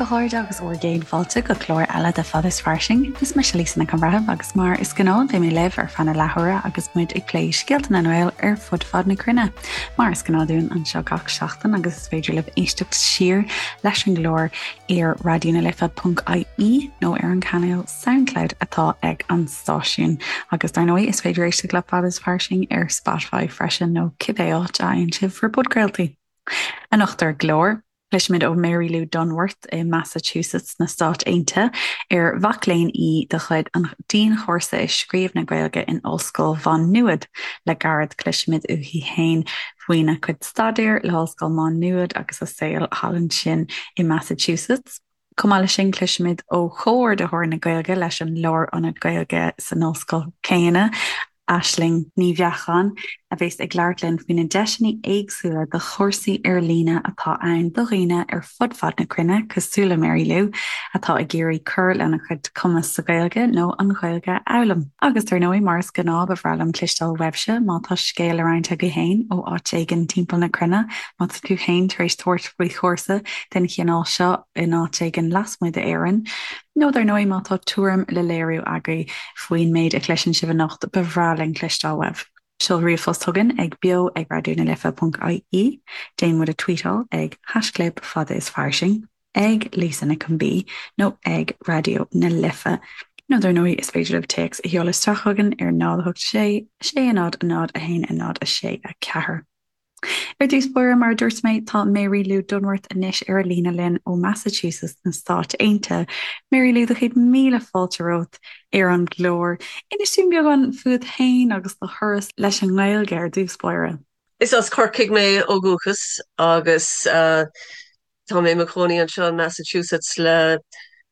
chairde agus bhur gcéad fáilte go clár eile de Fada is Fairsing. Is mise Lisa Nic an Bhreithimh agus mar is gnáth beidh mé libh ar feadh na leathuaire agus muid ag plé scéalta na nGael ar fud fad na cruinne. Mar is gnáth dúinn anseo gach seachtain agus is féidir libh éisteacht siar leis an gclár ar raidionalife.ie nó ar an cainéal Soundcloud atá ag an stáisiún. Agus dar ndóigh is féidir éisteacht le Fada is Fairsing ar Spotify freisin nó cibé áit a fhaigheann sibh bhur bpodchraoltaí. Anocht ar an gclár, cloisfimid ó Mary Lou Dunworth i Massachusetts sna Stáit Aontaithe, ar mhac léinn í de chuid an Dianchúrsa i Scríobh na Gaeilge in Ollscoil Mhá Nuad. Le gairid cloisfimid uaithi féin faoina cuid staidéir le hOllscoil Mhá Nuad agus a saol thall ansin i Massachusetts. Chomh maith leis sin, cloisfimid ó Chomhordaitheoir na Gaeilge leis an Lárionad Gaeilge san ollscoil chéanna, Aisling Ní Bheacháin, a bheas ag labhairt linn faoi na deiseanna éagsúla do chúrsaí ar líne atá ann do dhaoine ar fud fad na cruinne, cosúil le Mary Lou, atá ag iarraidh cur lena cuid cumas sa Ghaeilge nó an Ghaeilge a fhoghlaim. Agus dar ndóigh, mar is gnáth, ba bhreá liom cloisteáil uaibhse má tá scéal le roinnt agaibh féin ó áit éigin timpeall na cruinne, má tá tú féin tar éis tabhairt faoi chúrsa den chineál seo in áit éigin lasmuigh d'Éirinn, nó dar ndóigh má tá tuairim le léiriú agaibh faoin méid a chloiseann sibh anocht, ba bhreá linn cloisteáil uaibh. Seol ríomhphost chugainn ag beo ag raidionalife.ie, déan muid a tweetáil ag haischlib fada is fairsing, ag Lisa Nic an B nó ag Raidió na Life. Nó dar ndóigh is féidir libh téacs a sheoladh isteach chugainn ar 0 8 6 6 0 0 1 0 6 4. Ar dtús báire, mar a dúirt mé, tá Mary Lou Dunworth anois ar an líne linn ó Massachusetts na Stáit Aontaithe. Mary Lou, do chéad míle fáilte romhat ar an gclár. Inis dúinn beagán fút féin agus do thuras leis an nGaeilge ar dtús báire. Is as Corcaigh mé ó dhúchas agus Tá mé i mo chónaí anseo in Massachusetts le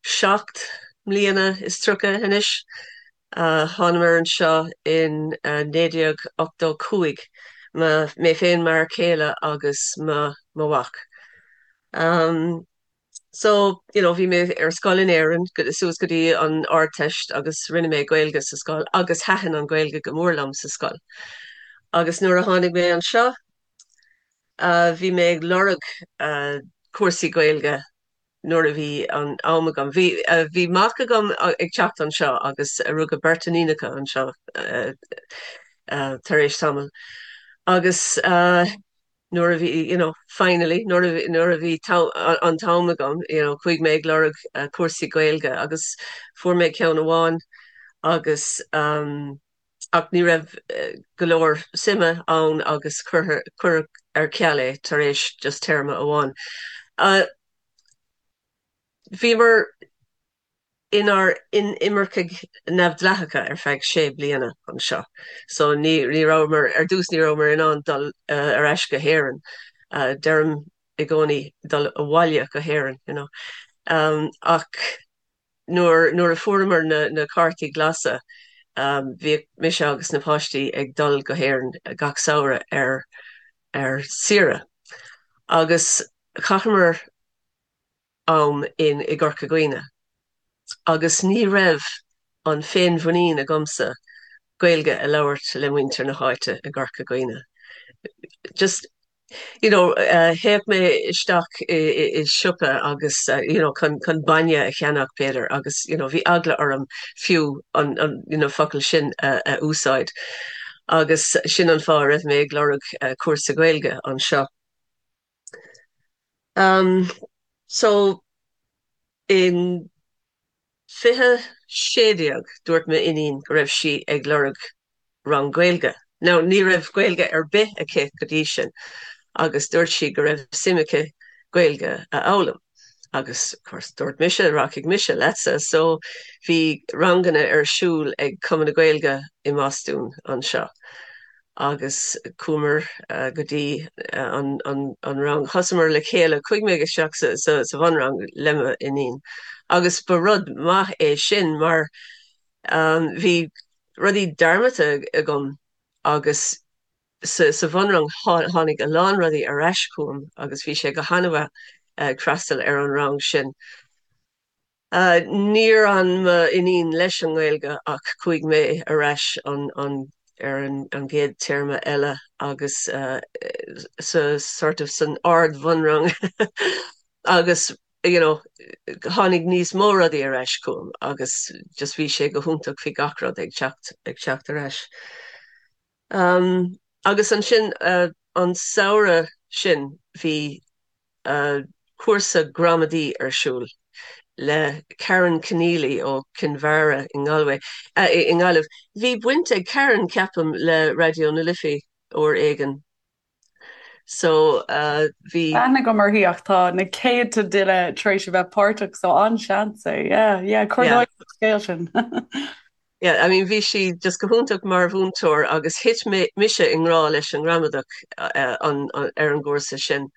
37 mbliana anois. Thánamar anseo in 1985, mé féin, m'fhear céile agus mo mhac. So, you know, bhí mé ar scoil in Éirinn suas go dtí an Ardteist agus rinne mé Gaeilge sa scoil agus thaitin an Ghaeilge go mór liom sa scoil. Agus nuair a tháinig mé anseo, Bhí mé ag lorg cúrsaí Gaeilge nuair a bhí an am agam. Bhí bhí mac agam ag teacht anseo agus rugadh beirt iníonacha anseo tar éis tamaill. Agus nuair a bhí, you know, finally, nuair a nuair a bhí an t-am agam, you know, chuaigh mé ag lorg cúrsaí Gaeilge agus fuair mé ceann amháin agus ach ní raibh go leor suime ann agus cuireadh ar ceal é tar éis just téarma amháin. Bhíomar inár n-inimircigh neamhdhleathacha ar feadh sé bliana anseo, so ní rabhamar, ar dtús ní rabhamar in ann dul ar ais go hÉirinn. Deirim i gcónaí dul abhaile go hÉirinn, you know. Ach Nuair nuair a fuaireamar na na cártaí glasa, bhíodh mise agus na páistí ag dul go hÉirinn gach samhradh ar ar saoire. Agus chaitheamar am in i gCorca Dhuibhne. Agus ní raibh an féinmhuinín agamsa Gaeilge a labhairt le muintir na háite i gCorca Dhuibhne. Just you know, théadh mé isteach i siopa agus you know, chun chun bainne a cheannach b'fhéidir agus you know, bhí eagla orm fiú an an you know, focal sin a a úsáid. Agus sin an fáth a raibh mé ag lorg cúrsa Gaeilge anseo. Um, so in 2016 dúirt m'iníon go raibh sí ag lorg rang Gaeilge. Now ní raibh Gaeilge ar bith aici go dtí sin agus dúirt sí go raibh suim aici Gaeilge a fhoghlaim. Agus of course dúirt mise rachaidh mise leatsa so bhí ranganna ar siúl ag Cumann na Gaeilge i mBostún anseo. agus chuamar go dtí an rang. Thosamar le chéile, chuaigh mé isteach sa bhunrang le m'iníon agus ba rud maith é sin mar bhí rudaí dearmadta agam agus sa bhunrang tháinig a lán rudaí ar ais chugam agus bhí sé go han-mhaith ag freastal ar an rang sin. Níor fhan m'iníon leis an nGaeilge ach chuaigh mé ar ais ar an gcéad téarma eile agus sa sort of san ard-bhunrang agus you know, tháinig níos mó rudaí ar ais chugam agus just bhí sé go hiontach, bhí gach rud ag teacht ag teacht ar ais. Um, agus ansin uh, an samhradh sin bhí uh, cúrsa gramadaí ar siúl le Karen Conneely ó Kinvara i nGalway, uh, i nGaillimh. Bhí baint ag Karen ceapaim le Raidió na Life uair éigin So bhí. Aithne agam uirthi ach tá na céadta duine tar éis a bheith páirteach so an-seans é. Yeah, yeah, cuir dóigh an scéal sin. Yeah, I mean bhí sí just go hiontach mar mhúinteoir agus thit mise i ngrá leis an ngramadach ar an gcúrsa sin.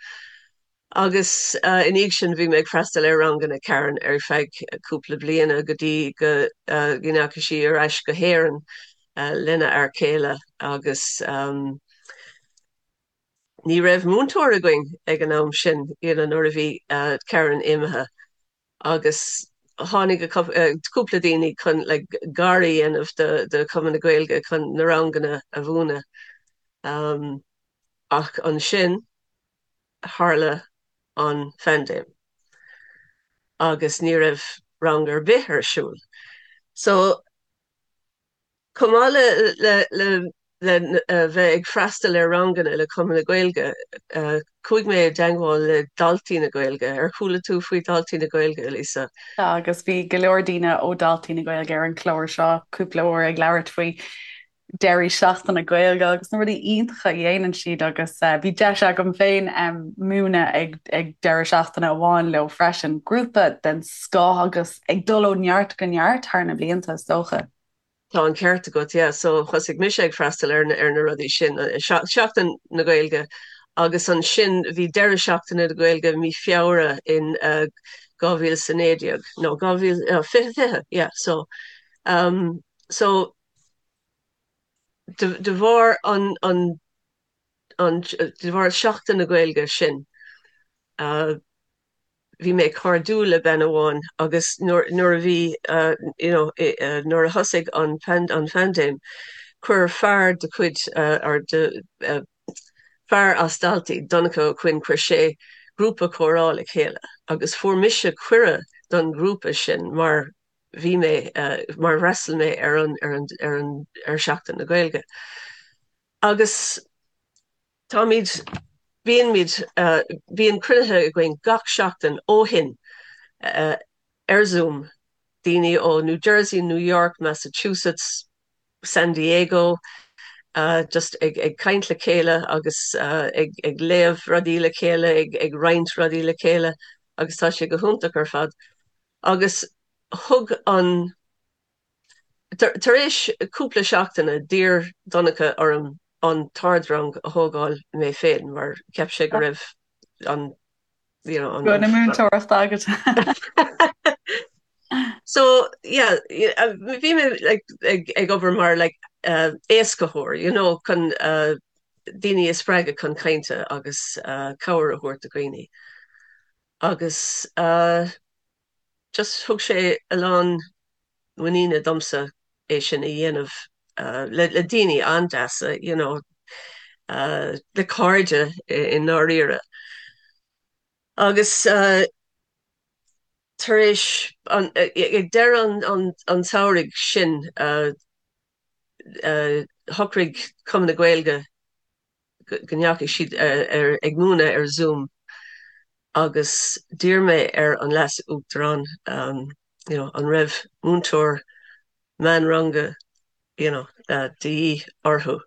Agus i ndiaidh sin bhí mé ag freastal ar ranganna Karen ar feadh cúpla bliana go dtí go ndeachaigh sí ar ais go hÉirinn lena fhear céile agus ní raibh múinteoir againn ag an am sin you know nuair a bhí Karen imithe agus tháinig cúpla daoine chun like gar a dhéanamh do Chumann na Gaeilge chun na ranganna a mhúineadh. Ach ansin tharla an phaindéim agus ní raibh rang ar bith ar siúl. So chomh maith le le le bheith ag freastal ar ranganna le Cumann na Gaeilge, chuaigh mé i dteagmháil le Daltaí na Gaeilge. Ar chuala tú faoi Daltaí na Gaeilge, Lisa? Tá, agus bhí go leor daoine ó Daltaí na Gaeilge ar an chlár seo cúpla uair ag labhairt faoi deirí seachtaine Gaeilge agus na rudaí iontacha a dhéanann siad agus bhí deis agam féin múineadh ag ag deireadh seachtaine amháin leo freisin. Grúpa den scoth agus ag dul ó neart go neart thar na blianta is dócha. Tá an ceart agat, yeah. So thosaigh mise ag freastal ar ar na rudaí sin, Seachtain na Gaeilge agus ansin bhí deireadh seachtaine na Gaeilge mí Feabhra in 2019 nó 2020, yeah. So um, so de bharr an an an de bharr Seachtain na Gaeilge sin bhí mé cairdiúil le bean amháin agus nuair nuair a bhí you know nuair a thosaigh an an phaindéim chuir fear de chuid or de fear as Daltaí, Donncha Ó Cuinn, chuir sé grúpa comhrá le chéile agus fuair mise cuireadh don ghrúpa sin mar bhí mé mar fhreastail mé ar an ar an ar an ar Seachtain na Gaeilge. Agus táimid bíonn bíonn cruinnithe againn gach seachtain ó shin ar Zoom, daoine ó New Jersey, New York, Massachusetts, San Diego, just ag ag caint le chéile agus ag ag léamh rudaí le chéile, ag ag roinnt rudaí le chéile agus tá sé go hiontach ar fad. Agus thug an, tar éis cúpla seachtaine, d'iarr Donncha orm an t-ardrang a thógáil mé féin mar cheap sé go raibh an, you know, an. Go na múinteoireachta agat. So, yeah, bhí mé like ag ag obair mar like éascaitheoir, you know, chun daoine a spreagadh chun cainte agus cabhair a thabhairt do dhaoine. Agus just thug sé a lán muiníne domsa é sin a dhéanamh le le daoine an-deasa, you know, le cairde i ndáiríre. Agus tar éis an, ag deireadh an an tsamhraidh sin, shocraigh Cumann na Gaeilge go ndeachaigh siad ar ag múineadh ar Zoom agus d'iarr mé ar an Leas-Uachtarán you know an raibh múinteoir meánranga you know de dhíth orthu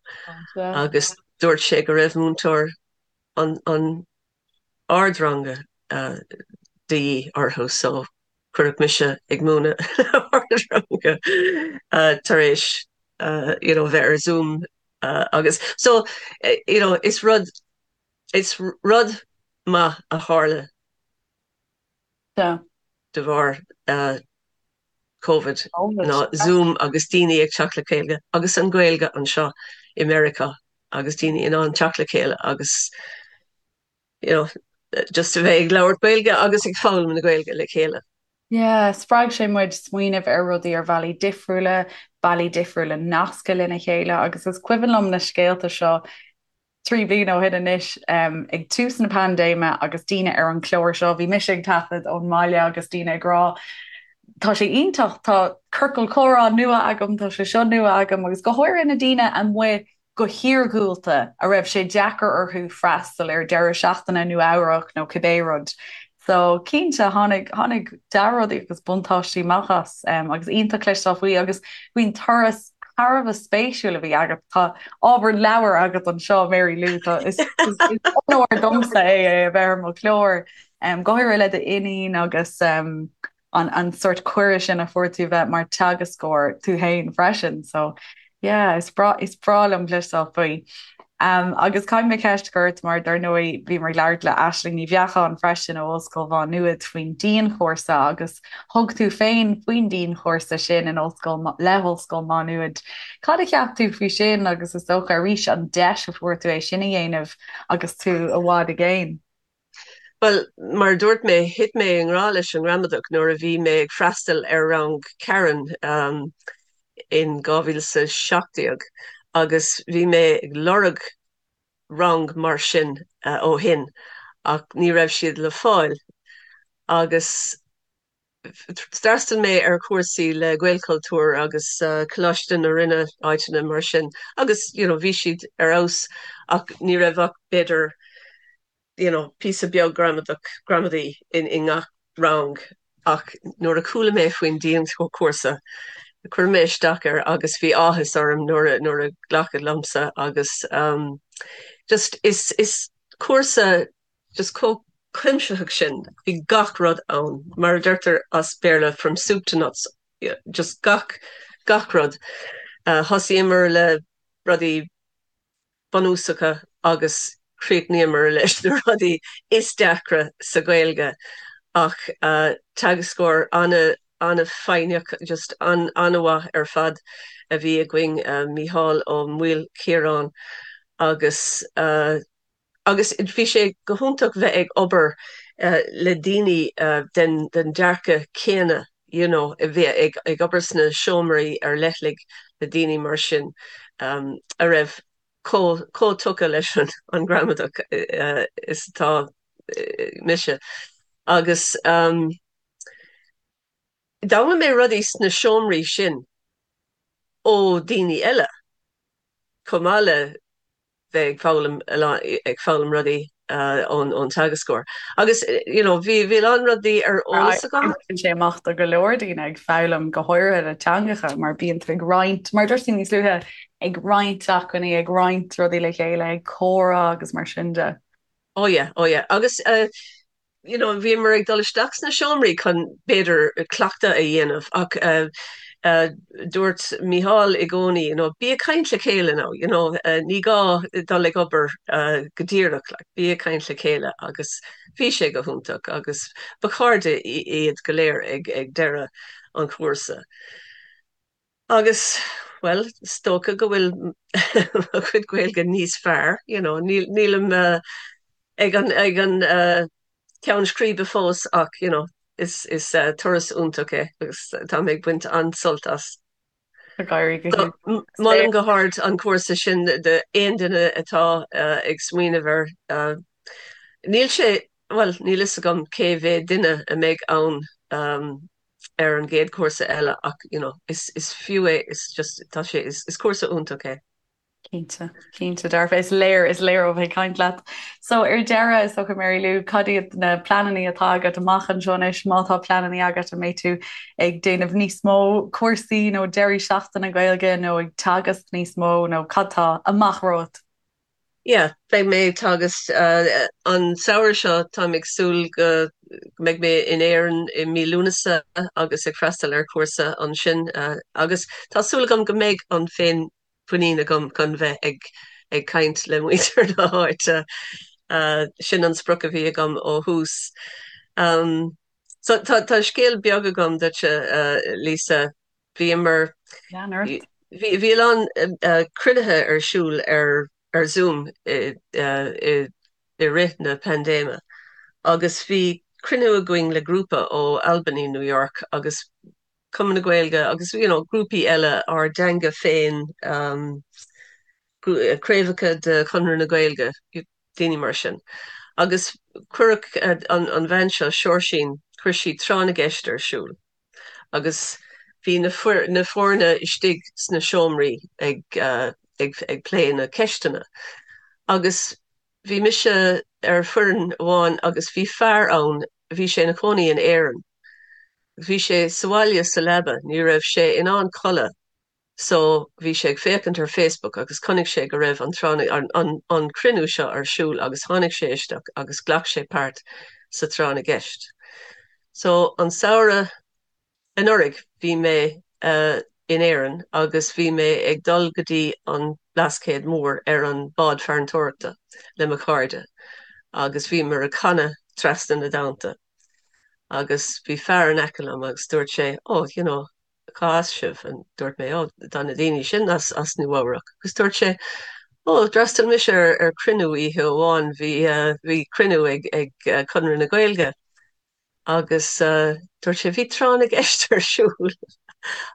agus dúirt sé go raibh múinteoir an an ardranga de dhíth orthu so cuireadh mise ag múineadh ardranga tar éis you know bheith ar Zoom agus so you know is rud is rud maith a tharla de bharr Covid ná Zoom agus daoine ag teacht le chéile agus an Ghaeilge anseo i Meiriceá agus daoine in ann teacht le chéile agus you know just a bheith ag labhairt Gaeilge agus ag foghlaim na Gaeilge le chéile. Yeah, spreag sé muid smaoineamh ar rudaí ar bhealaí difriúla, bealaí difriúla nascadh lena chéile agus is cuimhin liom na scéalta seo. 3 bliana ó shin anois, ag tús na paindéime agus daoine ar an chlár seo, bhí mise ag taifead ón mbaile agus daoine ag rá, tá sé iontach, tá ciorcal comhrá nua agam, tá sé seo nua agam agus go háirithe na daoine amuigh go hiargúlta a raibh sé deacair orthu freastal ar deireadh seachtaine i Nua Eabhrac nó cibé rud. So cinnte tháinig, tháinig dea-rudaí agus buntáistí amach as agus iontach cloisteáil faoi agus faoin turas thar a bheith spéisiúil a bhí agat. Tá ábhar leabhair agat anseo, Mary Lou, tá, is, is, is onóir domsa é é a bheith ar mo chlár, go háirithe le d'iníon agus um, an, an sort cuireadh sin a fuair tú bheith mar teagascóir tú féin freisin. So yeah, is breá, is breá liom cloisteáil faoi. Um, agus caithfidh mé ceist a chur ort mar dar ndóigh bhíomar ag labhairt le Aisling Ní Bheacháin freisin ó Ollscoil Mhá Nuad faoin dianchúrsa agus thug tú féin faoin dianchúrsa sin in Ollscoil le hOllscoil Mhá Nuad. Cad a cheap tú faoi sin agus is dócha arís an deis a fuair tú é sin a dhéanamh agus tú i bhfad i gcéin? Bhuel, mar a dúirt mé, thit mé i ngrá leis an ngramadach nuair a bhí mé ag freastal ar rang Karen in 2017 agus bhí mé ag lorg rang mar sin ó shin ach ní raibh siad le fáil agus D'fhreastail mé ar chúrsaí le Gaelchultúr agus Coláiste na Rinne, áiteanna mar sin agus you know bhí siad ar fheabhas ach ní raibh ach b'fhéidir you know píosa beag gramadach, gramadaí in i ngach rang ach nuair a chuala mé faoin dianchúrsa chuir mé isteach air agus bhí áthas orm nuair a nuair a glacadh liomsa agus um just is is cúrsa just chomh cuimsitheach sin, bhí gach rud ann, mar a deirtear as Béarla from soup to nuts, just gach, gach rud. Thosaíomar le rudaí bunúsacha agus chríochnaíomar leis na rudaí is deacra sa Ghaeilge ach teagascóir ana, an-fhoighneach, just an-mhaith ar fad a bhí againn, Mícheál Ó Maoilchiaráin agus. Agus bhí sé go hiontach bheith ag obair le daoine den dearcadh céanna, you know, a bheith ag obair sna seomraí ar leithligh le daoine mar sin a raibh chomh tugtha leis an ngramadach is atá mise. Agus d'fhoghlaim mé rudaí sna seomraí sin ó daoine eile chomh maith le bheith ag foghlaim ag foghlaim rudaí ón ón teagascóir. Agus you know bhí bhí a lán rudaí ar eolas agam. Oibríonn sé amach do go leor daoine ag foghlaim go háirithe le teangacha mar bíonn tú ag roinnt, mar dúirt tú níos luaithe, ag roinnt acmhainní, ag roinnt rudaí le chéile, ag comhrá agus mar sin de. Oh yeah, oh yeah. Agus you know, bhíomar ag dul isteach sna seomraí chun, b'fhéidir, cleachtadh a dhéanamh ach dúirt Mícheál i gcónaí, you know, bí ag caint le chéile now, you know, ní gá dul ag obair go díreach, like, bí ag caint le chéile agus bhí sé go hiontach agus ba chairde iad go léir ag, ag deireadh an chúrsa. Agus, bhuel, is dócha go bhfuil mo chuid Gaeilge níos fearr, you know, nílim ag an, ag an ceann scríbe fós ach, you know, is, is turas iontach é agus tá mé ag baint an-sult as. Ag éirí go hiontach. Molaim go hard an cúrsa sin d'aon duine atá ag smaoineamh air. Níl sé, bhuel, níl fhios agam cé mhéad duine a mbeidh ann ar an gcéad chúrsa eile ach you know is is fiú é is just tá sé is is cúrsa iontach é. Cinnte, cinnte dearfa. Is léir, is léir ó bheith ag caint leat. So ar deireadh, is dócha Mary Lou, cad iad na pleananna atá agat amach anseo anois, má tá pleananna agat, an mbeidh tú ag déanamh níos mó cúrsaí nó deirí seachtaine Gaeilge nó ag teagasc níos mó nó cad tá amach romhat? Yeah, beidh mé ag teagasc an samhradh seo, táim ag súil go mbeidh mé in Éirinn i mí Lúnasa agus ag freastal ar chúrsa ansin agus tá súil agam go mbeidh an féinmhuinín agam chun bheith ag ag caint le muintir na háite. Sin an sprioc a bhí agam ó thús. So tá tá scéal beag agam duitse, Lisa. Bhíomar, Lean ort. bhí bhí a lán cruinnithe ar siúl ar ar Zoom i i i rith na paindéime agus bhí cruinniú againn le grúpa ó Albany, New York agus Cumann na Gaeilge agus you know grúpaí eile ár dteanga féin. Craobhacha de Chonradh na Gaeilge, daoine mar sin. Agus cuireadh an bhean seo, Seoirsín, chuir sí tráth na gceist ar siúl agus bhí na foirne istigh sna seomraí ag ag plé na ceisteanna. Agus bhí mise ar foireann amháin agus bhí fear ann, bhí sé ina chónaí in Éirinn. Bhí sé sa bhaile sa leaba, ní raibh sé in ann codladh So bhí sé ag féachaint ar Facebook agus chonaic sé go raibh an tráth an an cruinniú seo ar siúl agus tháinig sé isteach agus ghlac sé páirt sa tráth na gceist. So an samhradh anuraidh bhí mé in Éirinn agus bhí mé ag dul go dtí an Blascaod Mór ar an bád farantóireachta le mo chairde agus bhíomar ag canadh Trasna na dTonnta agus bhí fear in aice liom agus dúirt sé oh you know cá as sibh? And dúirt mé, oh, tá na daoine sin as, as Nua Eabhrac. Agus dúirt sé, oh, d'fhreastail mise ar, ar cruinniú oíche amháin, bhí, uh, bhí cruinniú ag, ag uh, Conradh na Gaeilge. Agus uh, dúirt sé, bhí tráth na gceist ar siúl.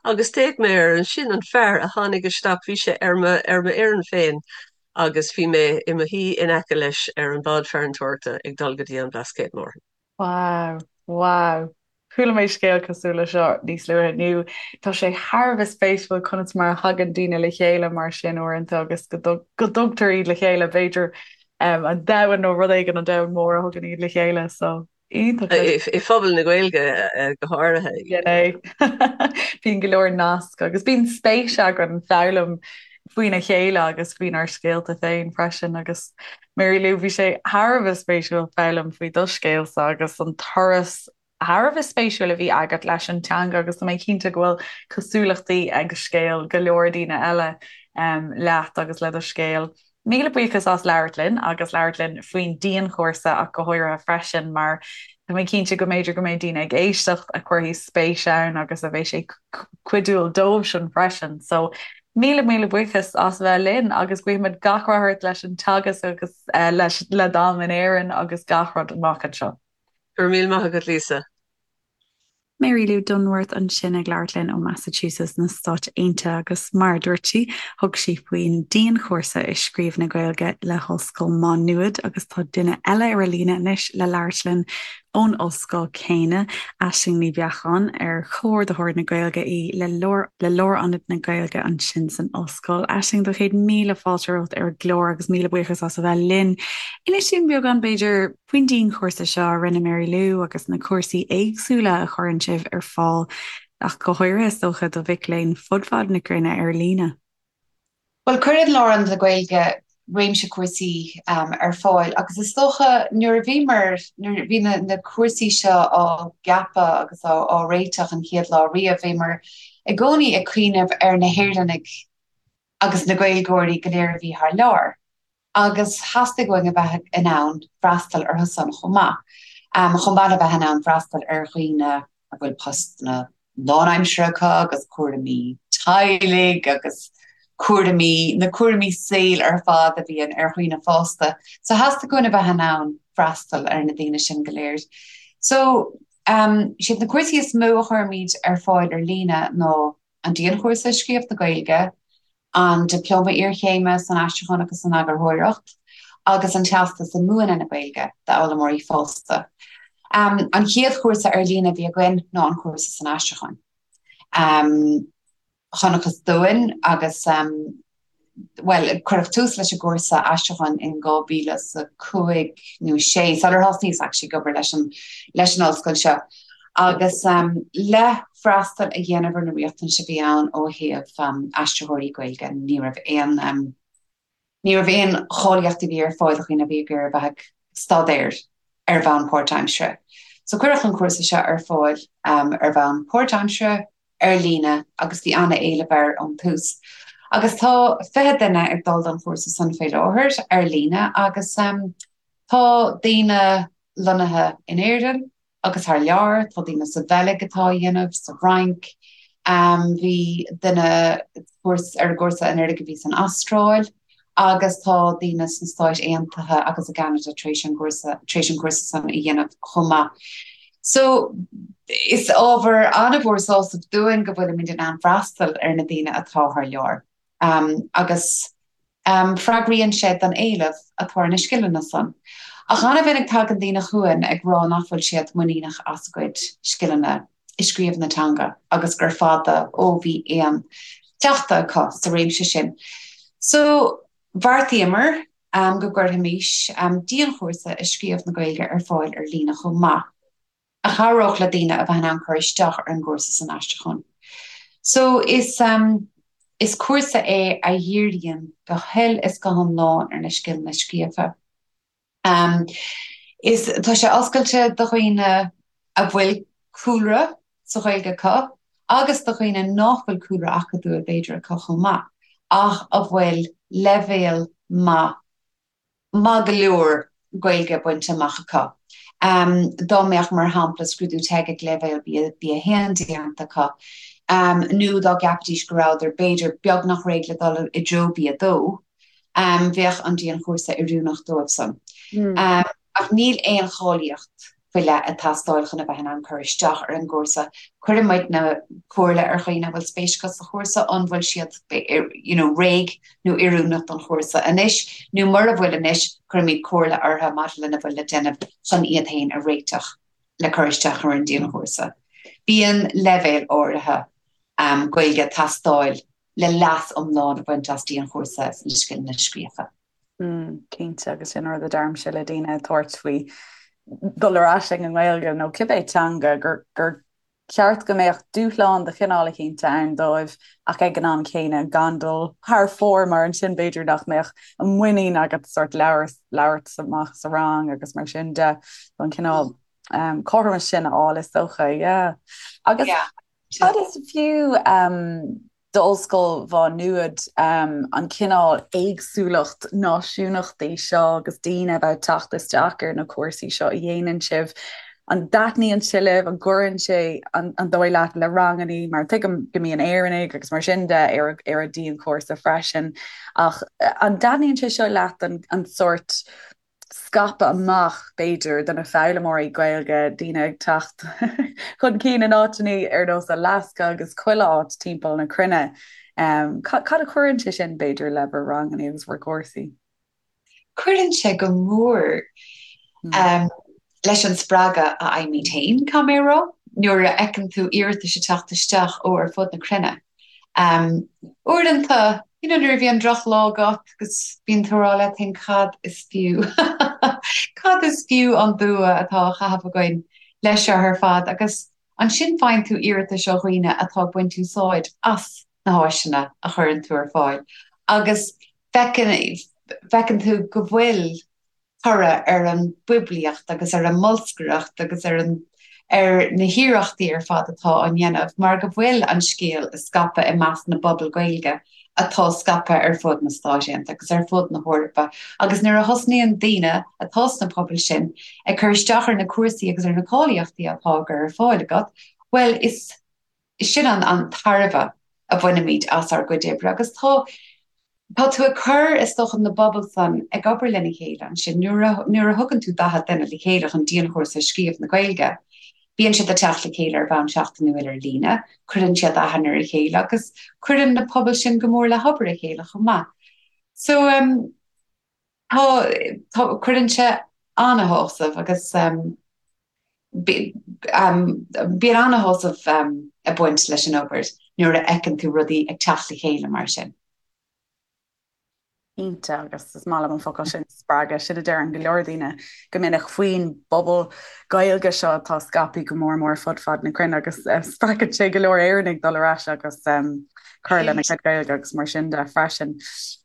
Agus d'fhéach mé air ansin an fear a tháinig isteach, bhí sé ar mo, ar mo fhoireann féin agus bhí mé i mo shuí in aice leis ar an bád farantóireachta ag dul go dtí an Blascaod Mór. Wow, wow. Chuala mé scéal cosúil le seo níos luaithe inniu. Tá sé thar a bheith spéisiúil conas mar a thagann daoine le chéile mar sin uaireanta agus go dtugtar iad le chéile, b'fhéidir an domhan nó rud éigin, an domhan mór a thugann iad le chéile. So, iontach. I phobal na Gaeilge go háirithe. Sin é. Bíonn go leor nasc agus bíonn spéis againn foghlaim faoina chéile agus faoinár scéalta féin freisin agus Mary Lou, bhí sé thar a bheith spéisiúil foghlaim faoi do scéalsa agus an turas thar a bheith spéisiúil a bhí agat leis an teanga agus tá mé cinnte go bhfuil cosúlachtaí ag scéal go leor daoine eile leat agus le do scéal. Míle buíochas as labhairt linn agus labhairt linn faoin dianchúrsa ach go háirithe freisin mar tá mé cinnte go mb'fhéidir go mbeidh daoine ag éisteacht a chuirfidh spéis ann agus a bheidh sé cuidiúil dóibhsean freisin. So Míle míle buíochas as a bheith linn agus guímid gach rath ort leis an teagasc agus leis le d'am in Éirinn agus gach rud amach anseo. Go raibh míle maith agat Lisa. Mary Lou Dunworth ansin ag labhairt linn ó Massachusetts na Stáit Aontaithe agus mar a dúirt sí, thug sí faoin dianchúrsa i scríobh na Gaeilge le hOllscoil Má Nuad agus tá duine eile ar an líne anois le labhairt linn ón ollscoil céanna, Aisling Ní Bheacháin, ar Comhordaitheoir na Gaeilge í le le Lárionad na Gaeilge ansin san ollscoil. Aisling, do chéad míle fáilte romhat ar an gclár agus míle buíochas as a bheith linn. Inis dúinn beagán, b'fhéidir, faoin dianchúrsa seo a rinne Mary Lou agus na cúrsaí éagsúla a chuireann sibh ar fáil, ach go háirithe, is dócha, do mhic léinn fud fad na cruinne ar líne. Bhuel, cuireann Lárionad na Gaeilge réimse cúrsaí ar fáil agus is dócha nuair a bhíomar, nuair a bhí na cúrsaí seo á gceapadh agus á réiteach an chéad lá riamh, bhíomar i gcónaí ag cuimhneamh ar na hÉireannaigh agus na Gaeilgeoirí go léir a bhí thar lear. agus theastaigh uainn a bheith in ann freastal orthu san chomh maith, chomh maith le bheith in ann freastal ar dhaoine a bhfuil postanna lánaimseartha acu agus cúraimí teaghlaigh agus cúraimí, na cúraimí saoil ar fad a bhíonn ar dhaoine fásta. So theastaigh uainn a bheith in ann freastal ar na daoine sin go léir. So, siad na cúrsaí is mó a chuirimid ar fáil ar líne ná an Dianchúrsa i Scríobh na Gaeilge, an Dioplóma Iarchéime san Aistriúchán agus san Eagarthóireacht agus an Teastas i Múineadh na Gaeilge d'Fhoghlaimeoirí Fásta. An chéad chúrsa ar líne a bhí againn ná an cúrsa san aistriúchán. Chonacthas dúinn agus, bhuel, cuireadh tús leis an gcúrsa aistriúcháin in 2005 nó 6, sular thosnaíos actually ag obair leis an leis an ollscoil seo. Agus le freastal a dhéanamh ar na riachtanais a bhí ann ó thaobh aistritheoirí Gaeilge, ní raibh aon ní raibh aon cháilíocht a bhí ar fáil do dhaoine a bhí ag iarraidh a bheith ag staidéar ar bhonn páirtaimseartha. So cuireadh an cúrsa seo ar fáil ar bhonn páirtaimseartha, ar líne, agus bhí an-éileamh air ón tús. Agus tá 20 duine ag dul don chúrsa san faoi láthair ar líne agus tá daoine lonnaithe in Éirinn, agus thar lear, tá daoine sa Bheilg atá á dhéanamh, sa Fhrainc, bhí duine ar an gcúrsa anuraidh a bhí san Astráil agus tá daoine sna Stáit Aontaithe agus i gCeanada tar éis an gcúrsa, tar éis an cúrsa san a dhéanamh chomh maith. So, is ábhar an-mhór sásaimh dúinn go bhfuilimid in ann freastal ar na daoine atá thar lear. Agus. Freagraíonn sé don éileamh atá ar na scileanna san. Ach an-mhinic tagann daoine chugainn ag rá nach bhfuil siad muiníneach as a gcuid scileanna i scríobh na teanga agus gur fada ó bhí aon chleachtadh acu sa réimse sin. So, bheartaíomar go gcuirfimis dianchúrsa i scríobh na Gaeilge ar fáil ar líne chomh maith. a chabhródh le daoine a bheith in ann cur isteach ar an gcúrsa san aistriúchán. So is is cúrsa é a dhíríonn go huile is go hiomlán ar na scileanna scríofa. Is tá sé oscailte do dhaoine a bhfuil cúlra sa Ghaeilge acu agus do dhaoine nach bhfuil cúlra acadúil b'fhéidir acu chomh maith ach a bhfuil leibhéal maith maith go leor Gaeilge bainte amach acu. Dá mbeadh, mar shampla, scrúdú teg ag leibhéal B1 déanta acu, nó dá gceapfaidís go rabhadar, b'fhéidir, beagnach réidh le dul i dtreo B2, bheadh an dianchúrsa oiriúnach dóibh san. Ach níl aon cháilíocht faoi leith ag teastáil chun a bheith in ann cur isteach ar an gcúrsa. Cuireann muidne comhairle ar dhaoine a bhfuil spéis acu sa chúrsa an bhfuil siad you know réidh nó oiriúnach don chúrsa anois nó mura bhfuil anois, cuirimid comhairle orthu maidir lena bhfuil le déanamh chun iad féin a réiteach le cur isteach ar an dianchúrsa. Bíonn leibhéal áirithe Gaeilge ag teastáil le leas iomlán a bhaint as dianchúrsa sna scileanna scríofa. Cinnte, agus sin rud a deirimse le daoine ag tabhairt faoi dul ar ais ag an nGaeilge nó cibé teanga gur gur ceart go mbeadh dúshlán de chineál eicínt ann dóibh ach ag an am céanna gan dul thar fóir mar ansin b'fhéidir nach mbeadh an muinín agat sort labhairt labhairt amach sa rang agus mar sin de an cineál um, cothromas sin a fháil is dócha, yeah. Agus yeah. Cad is fiú d'Ollscoil Mhá Nuad an cineál éagsúlacht náisiúnachtaí seo agus daoine a bheith ag teacht isteach ar na cúrsaí seo a dhéanann sibh? An dtaitníonn sé libh? An gcuireann sé an dóigh leat le rangannaí? Mar tuigim go mbíonn Éireannaigh agus mar sin de ar ar an dianchúrsa freisin ach an dtaitníonn sé seo leat an sórt scaipeadh amach, b'fhéidir, do na foghlaimeoirí Gaeilge, daoine ag teacht chun cinn in áiteanna ar nós Alaska agus chuile áit timpeall na cruinne. Cad a chuireann sé sin, b'fhéidir, le bhur ranganna agus bhur gcúrsaí? Cuireann sé go mór leis an spreagadh a fhaighimid féin, caithfidh mé a rá, nuair a fheiceann tú iarratais ag teacht isteach ó ar fud na cruinne. Uaireanta, you know, nuair a bhíonn drochlá agat agus bíonn tú ag rá leat féin cad is fiú, cad is fiú an dua atá á chaitheamh againn leis seo ar fad agus ansin faigheann tú iarratais ó dhaoine atá ag baint úsáid as na háiseanna a chuireann tú ar fáil agus feiceann, feiceann tú go bhfuil toradh ar an bpoiblíocht agus ar an mbolscaireacht agus ar an ar na hiarrachtaí ar fad atá á ndéanamh mar go bhfuil an scéal ag scaipeadh i measc na bpobal Gaeilge atá scaipthe ar fud na Stáit Aontaithe agus ar fud na hEorpa agus nuair a thosnaíonn daoine atá sna pobail sin ag cur isteach ar na cúrsaí agus ar na cáilíochtaí atá á gcur ar fáil agat, bhuel is sin an an tairbhe a bhainimid as ár gcuid oibre agus tá tá tú ag cur, is dócha, na bpobal san ag obair lena chéile ansin. Nuair a nuair a thugann tú 40 duine le chéile chun dianchúrsa scríobh na Gaeilge, bíonn siad ag teacht le chéile ar bhonn seachtainiúil ar líne, cuireann siad aithne ar a chéile agus cuireann na pobail sin go mór le hobair a chéile chomh maith. So um, tá tá cuireann sé ana-shásamh agus um, Bíonn ana-shásamh ag baint leis an obair nuair a fheiceann tú rudaí ag teacht le chéile mar sin. Cinnte, agus is maith liom an focal sin, spreagadh. Sin a deireann go leor daoine go minic faoin bpobal Gaeilge seo atá scaipthe go mór mór fud fad na cruinne agus spreagann sé go leor Éireannaigh dul ar ais agus cur lena gcuid Gaeilge agus mar sin de freisin.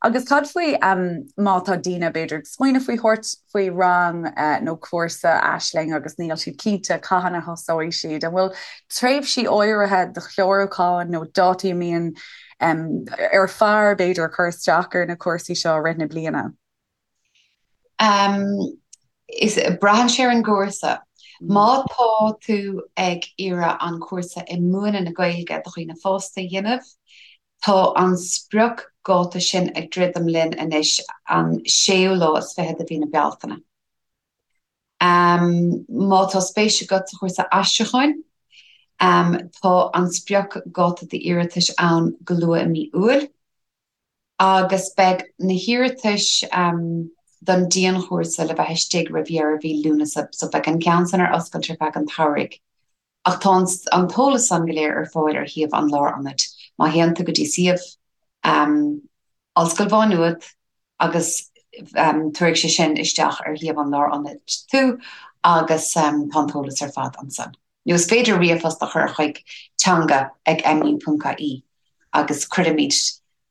Agus cad faoi má tá daoine b'fhéidir ag smaoineamh faoi thabhairt faoi rang nó cúrsa Aisling agus níl siad cinnte cathain a thosóidh siad. An bhfuil tréimhsí áirithe do chlárúcháin nó dátaí a mbíonn ar fearr, b'fhéidir, cur isteach ar na cúrsaí seo i rith na bliana? Is braitheann sé ar an gcúrsa. Má tá tú ag iarraidh an cúrsa i múineadh na Gaeilge do dhaoine fásta a dhéanamh, Tá an spriocdháta sin ag druidim linn anois, an séú lá is fiche de mhí na Bealtaine. Má tá spéis agat sa chúrsa aistriúcháin, tá an spriocdháta d'iarratais ann go luath i mí Iúil. Agus beidh na hiarratais don dianchúrsa le bheith istigh roimh dheireadh mhí Lúnasa, so beidh an ceann san ar oscailt ar feadh an tsamhraidh. Ach tá an t-eolas san go léir ar fáil ar shuíomh an Lárionaid. Má théann tú go dtí suíomh Ollscoil Mhá Nuad agus tabharfaidh sé sin isteach ar shuíomh an Lárionaid tú agus tá an t-eolas ar fad ansan. Nó is féidir ríomhphost a chur chuig teanga ag mu.ie agus cuirfimid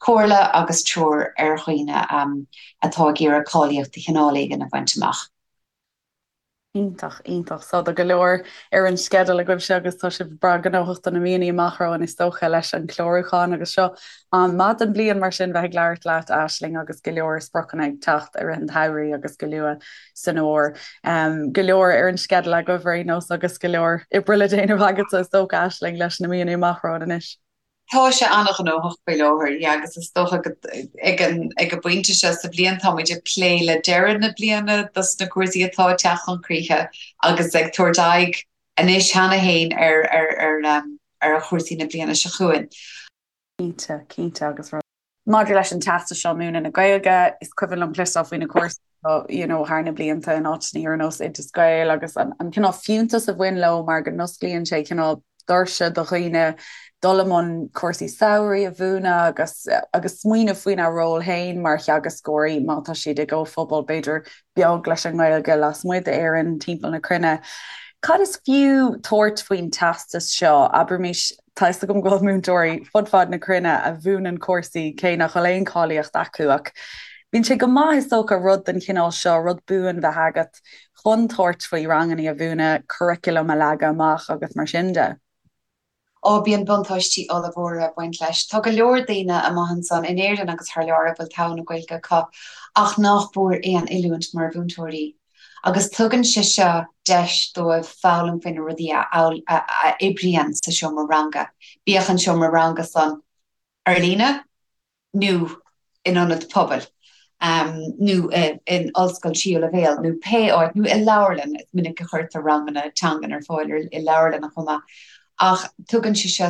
comhairle agus treoir ar dhaoine atá ag iarraidh cáilíocht de chineál éigin a bhaint amach. Iontach, iontach. So tá go leor ar an sceideal agaibhse agus tá sibh breá gnóthach do na míonna amach romhainn is dócha leis an chlárúchán agus seo am maith den bhliain mar sin bheith ag labhairt leat Aisling agus go leor spriocanna ag teacht i rith an tsamhraidh agus go luath san fhómhar. Go leor ar an sceideal agaibh ar aon nós agus go leor oibre le déanamh agatsa is dócha Aisling leis na míonna amach romhainn anois. Tá sé an-ghnóthach faoi láthair, yeah, agus is dócha go ag an ag an bpointe seo sa bhliain táimid ag plé le deireadh na bliana dos na cúrsaí atá ag teacht chun críche agus ag tabhairt aghaidh anois cheana féin ar ar ar ar chúrsaí na bliana seo chugainn. Cinnte, cinnte agus rud. Maidir leis an teastas seo múineadh na Gaeilge, is cuimhin liom cloisteáil faoi na cúrsaí seo you know thar na blianta in áiteanna ar nós Oideas Gael agus an an cineál fiúntas a bhain leo mar go n-osclaíonn sé cineál doirse do dhaoine dul i mbun cúrsaí samhraidh a mhúineadh agus agus smaoineamh faoina ról féin mar theagascóirí má tá siad i gcomhphobal b'fhéidir beag leis an nGaeilge lasmuigh d'Éirinn timpeall na cruinne. Cad is fiú tabhairt faoin teastas seo? Abraimis Tá fhios agam go bhfuil múinteoirí fud fad na cruinne a mhúineann cúrsaí cé nach bhfuil aon cháilíocht acu ach bíonn sé go maith is dócha rud den chineál seo, rud buan bheith agat chun tabhairt faoi ranganna a mhúineadh, curriculum a leagadh amach agus mar sin de. Ó, bíonn buntáistí ollmhóra ag baint leis. Tá go leor daoine amach ansan in Éirinn agus thar lear a bhfuil togha na Gaeilge acu ach nach bhfuair aon oiliúint mar mhúinteoirí. Agus tugann sé seo deis dóibh foghlaim faoi na rudaí a oibríonn sa seomra ranga, bíodh an seomra ranga san ar líne nó in ionad pobail nó in ollscoil tríú leibhéal nó pé áit, nó i leabharlann, is minic a chuirtear ranganna teangan ar fáil i leabharlanna chomh maith. Ach tugann sé seo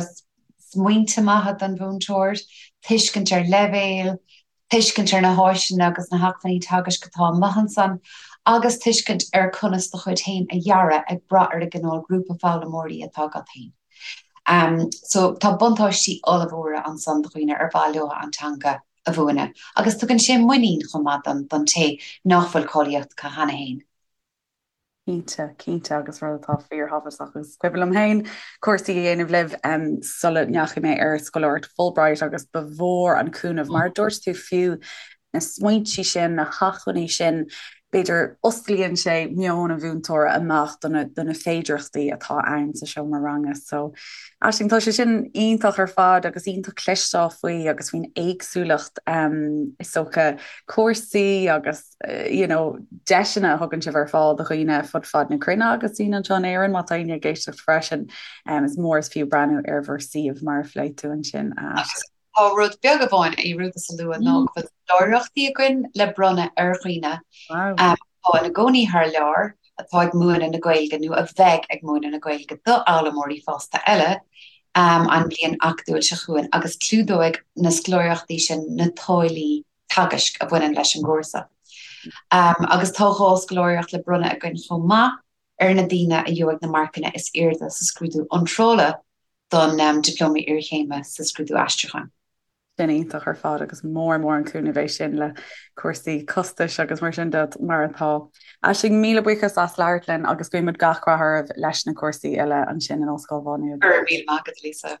smaointe maithe don mhúinteoir, tuiscint ar leibhéil, tuiscint ar na háiseanna agus na hacmhainní teagaisc atá amuigh ansan, agus tuiscint ar conas do chuid féin a dhearadh ag brath ar an gcineál grúpa foghlaimeoirí atá agat féin. So tá buntáistí ollmhóra ansan do dhaoine ar mhaith leo an teanga a mhúineadh, agus tugann sé muinín chomh maith don té nach bhfuil cáilíocht acu cheana féin. Cinnte, cinnte agus rud atá fíorthábhachtach agus is cuimhin liom féin cúrsaí a dhéanamh libh sula ndeachaigh mé ar scoláireacht Fulbright agus ba mhór an cúnamh mar a dúirt tú fiú na smaointe sin, na hacmhainní sin, b'fhéidir osclaíonn sé meon an mhúinteora amach do na, do na féidearthachtaí atá ann sa seomra ranga. So Aisling, tá sé sin iontach ar fad agus iontach cloisteáil faoi agus faoin éagsúlacht is dócha cúrsaí agus you know, deiseanna a thugann sibh ar fáil do dhaoine fud fad na cruinne agus daoine anseo in Éirinn má tá éinne ag éisteacht freisin. Um, is mór is fiú breathnú ar bhur suíomh mar a phléigh tú ansin. Agus tá rud beag amháin a dhearúdas a lua ná go bhfuil scoláireachtaí againn le bronnadh ar dhaoine um, atá ina gcónaí thar lear, atá ag múineadh na Gaeilge nó a bheidh ag múineadh na Gaeilge d'fhoghlaimeoirí fásta eile um, an bhliain acadúil seo chugainn agus clúdóidh na scoláireachtaí sin na táillí teagaisc a bhaineann leis an gcúrsa. Agus tá 2 scoláireacht le bronnadh againn chomh maith ar na daoine a gheobhaidh na marcanna is airde sa scrúdú iontrála don Dioplóma Iarchéime sa Scrúdú Aistriúcháin. Sin iontach ar fad agus mór mór an cúnamh é sin le cúrsaí costais agus mar sin de mar atá. Aisling, míle buíochas as labhairt linn agus guímid gach rath oraibh leis na cúrsaí uile ansin in Ollscoil Mhá Nuad. Go raibh míle maith agat, Lisa.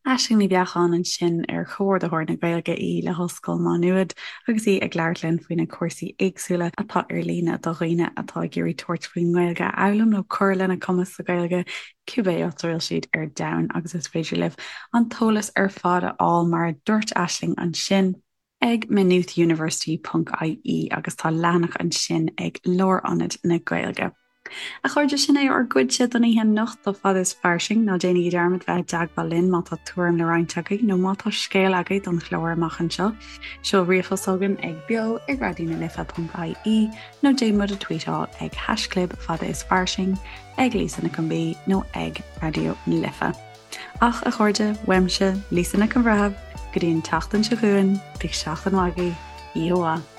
Aisling Ní Bheacháin ansin ar Chomhordaitheoir na Gaeilge í le hOllscoil Mhá Nuad agus í ag labhairt linn faoi na cúrsaí éagsúla atá ar líne do dhaoine atá ag iarraidh tabhairt faoin nGaeilge a fhoghlaim nó cur lena gcumas sa Ghaeilge cibé áit a bhfuil siad ar domhan agus is féidir libh an t-eolas ar fad a fháil mar a dúirt Aisling ansin ag maynoothuniversity ponc ie agus tá leathanach ansin ag Lárionad na Gaeilge. A chairde, sin é ár gcuidse don oíche anocht do Fada is Fairsing. Ná déanaigí dearmad bheith i dteagmháil linn má tá tuairim le roinnt agaibh nó má tá scéal agaibh don chlár amach anseo. Seol ríomhphost chugainn ag beo ag raidionalife.ie nó déan muid a tweetáil ag haischlib fada is fairsing, ag Lisa Nic an B nó ag Raidió na Life. Ach, a chairde, uaimse, Lisa Nic an Bhreithimh. Go dtí an tseachtain seo chugainn, bíodh seachtain mhaith agaibh, oíche mhaith.